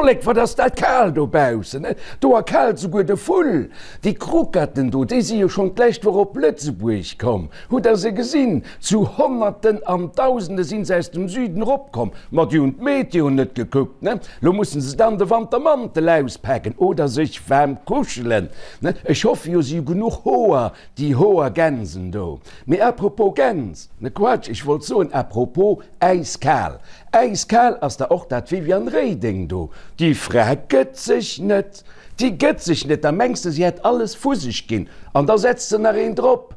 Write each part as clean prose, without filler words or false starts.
Vollek, wat ass dat kal dobaussen, ne? Do erkaalt souguer de Vull. Déi Kruketten do, déi si jo schonn d'lescht Woch op Lëtzebuerg komm. Hutt der se gesinn? Zu Honnerten an Dausende sinn se aus dem Süden eropkomm. Ma déi hunn d'Meteo net gekuckt, ne? Lo mussen se dann de Wantermantel auspaken oder sech waarm kuschelen, ne? Ech hoffe jo, si hu genuch Hoer, déi Hoergänsen do. Mee à propos Gäns, ne Quatsch, ech wollt soen à propos äiskal. Äiskal ass da och dat Viviane Reding do. Déi Fra gëtt sech net, déi gëtt sech net. Da mengs de, si hätt alles vu sech ginn an da setzt se nach een drop.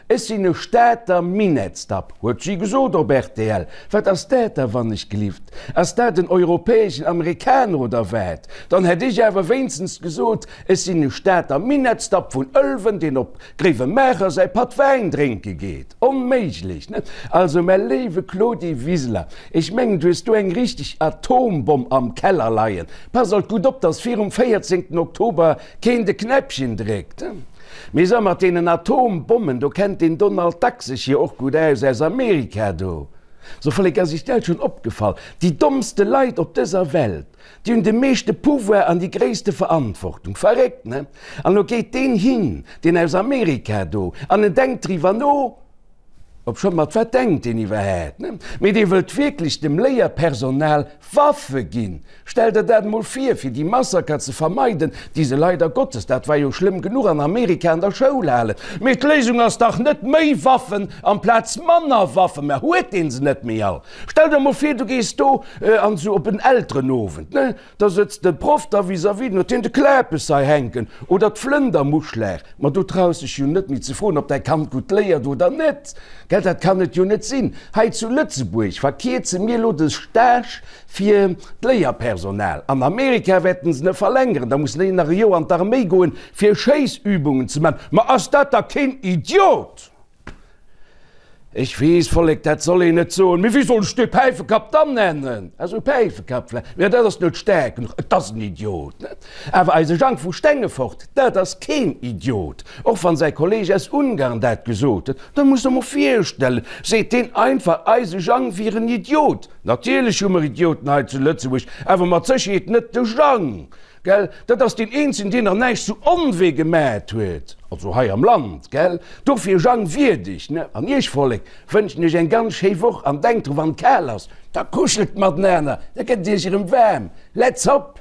Ech sinn e Stater Minettsdapp, huet si gesot op rtl. Wat ass dat da wannechgelift? Ass dat en europäeschen Amerikaner oder wat? Dann hätt ech awer wéinstens gesot, ech sinn e Stater Minettsdapp vun Ëlwen, deen op Gréiwemaacher säi Patt Wäin drénke geet. Onméiglech, ne? Also, mä léiwe Claudie Wiseler, ech mengen, du hues do eng richteg Atombomm am Keller leien. Pass alt gutt op, dass virum 14 Oktober keen de Knäppchen dréckt. Mee so mat deenen Atombommen, do kennt den Donald Duck sech jo och gutt aus, aus Amerika do. So Vollek, ass iech dat schonn opgefall, déi dommste Leit op dëser Welt, déi hunn de meeschte Pouvoir an déi gréisste Verantwortung. Verréckt, ne? An elo geet deen hin, deen aus Amerika do, an en denkt driwwer no, Obschonn, mat wat denkt een iwwerhaapt, ne? Mee dee wëllt wierklech dem Léierpersonal Waffe ginn. Stell der dat emol vir, fir déi Massaker ze vermeiden, déi se leider Gottes, dat war jo schlëmm genuch, an Amerika an der Schoul halen. Mee d'Léisung ass dach net méi Waffen amplaz manner Waffen. Mä huet dee se net méi all? Stell der emol vir, du gees do an esou op en Elterenowend, ne? Da sëtzt de Proff da vis-à-vis, den huet hien de Klapes hei hänken oder d'Flëndermuschlag. Ma du traus dech jo net méi ze froen, ob däi Kand gutt léiert oder net, gell? Dat kann et jo net sinn. Hei zu Lëtzebuerg verkierze mir elo de Stage fir d'Léierpersonal. An Amerika wäerten se e verlängeren, da mussen déi nach e Joer an d'Arméi goen, fir Schéissübungen ze man. Ma ass dat da keen Idiot? Ech weess, Vollek, dat soll een net soen, mee wéi soll ech dee Päifekapp dann nennen? Also Päifekapp vläicht, mä dat ass net staark genuch, et ass en Idiot, ne? Awer eise Jang vu Stengefort, dat ass keen Idiot, och wann säi Kolleg aus Ungarn dat gesot huet. Dat muss der mol virstellen, seet deen einfach, eise Jang wier en Idiot. Natierlech hu mer Idioten hei zu Lëtzebuerg, awer mat Sécherheet net de Jang. Gell, dat ass deen eenzegen, deen nach näischt zu Onwee gemät huet, also hei am Land, gell. Dofir, Jang, wierdeg, ne? An iech, Vollek, wënschen ech eng ganz schéi Woch an denkt dru, wann et kal ass, da kuschelt matenaner, da gëtt et iech erëm waarm. Let's hop!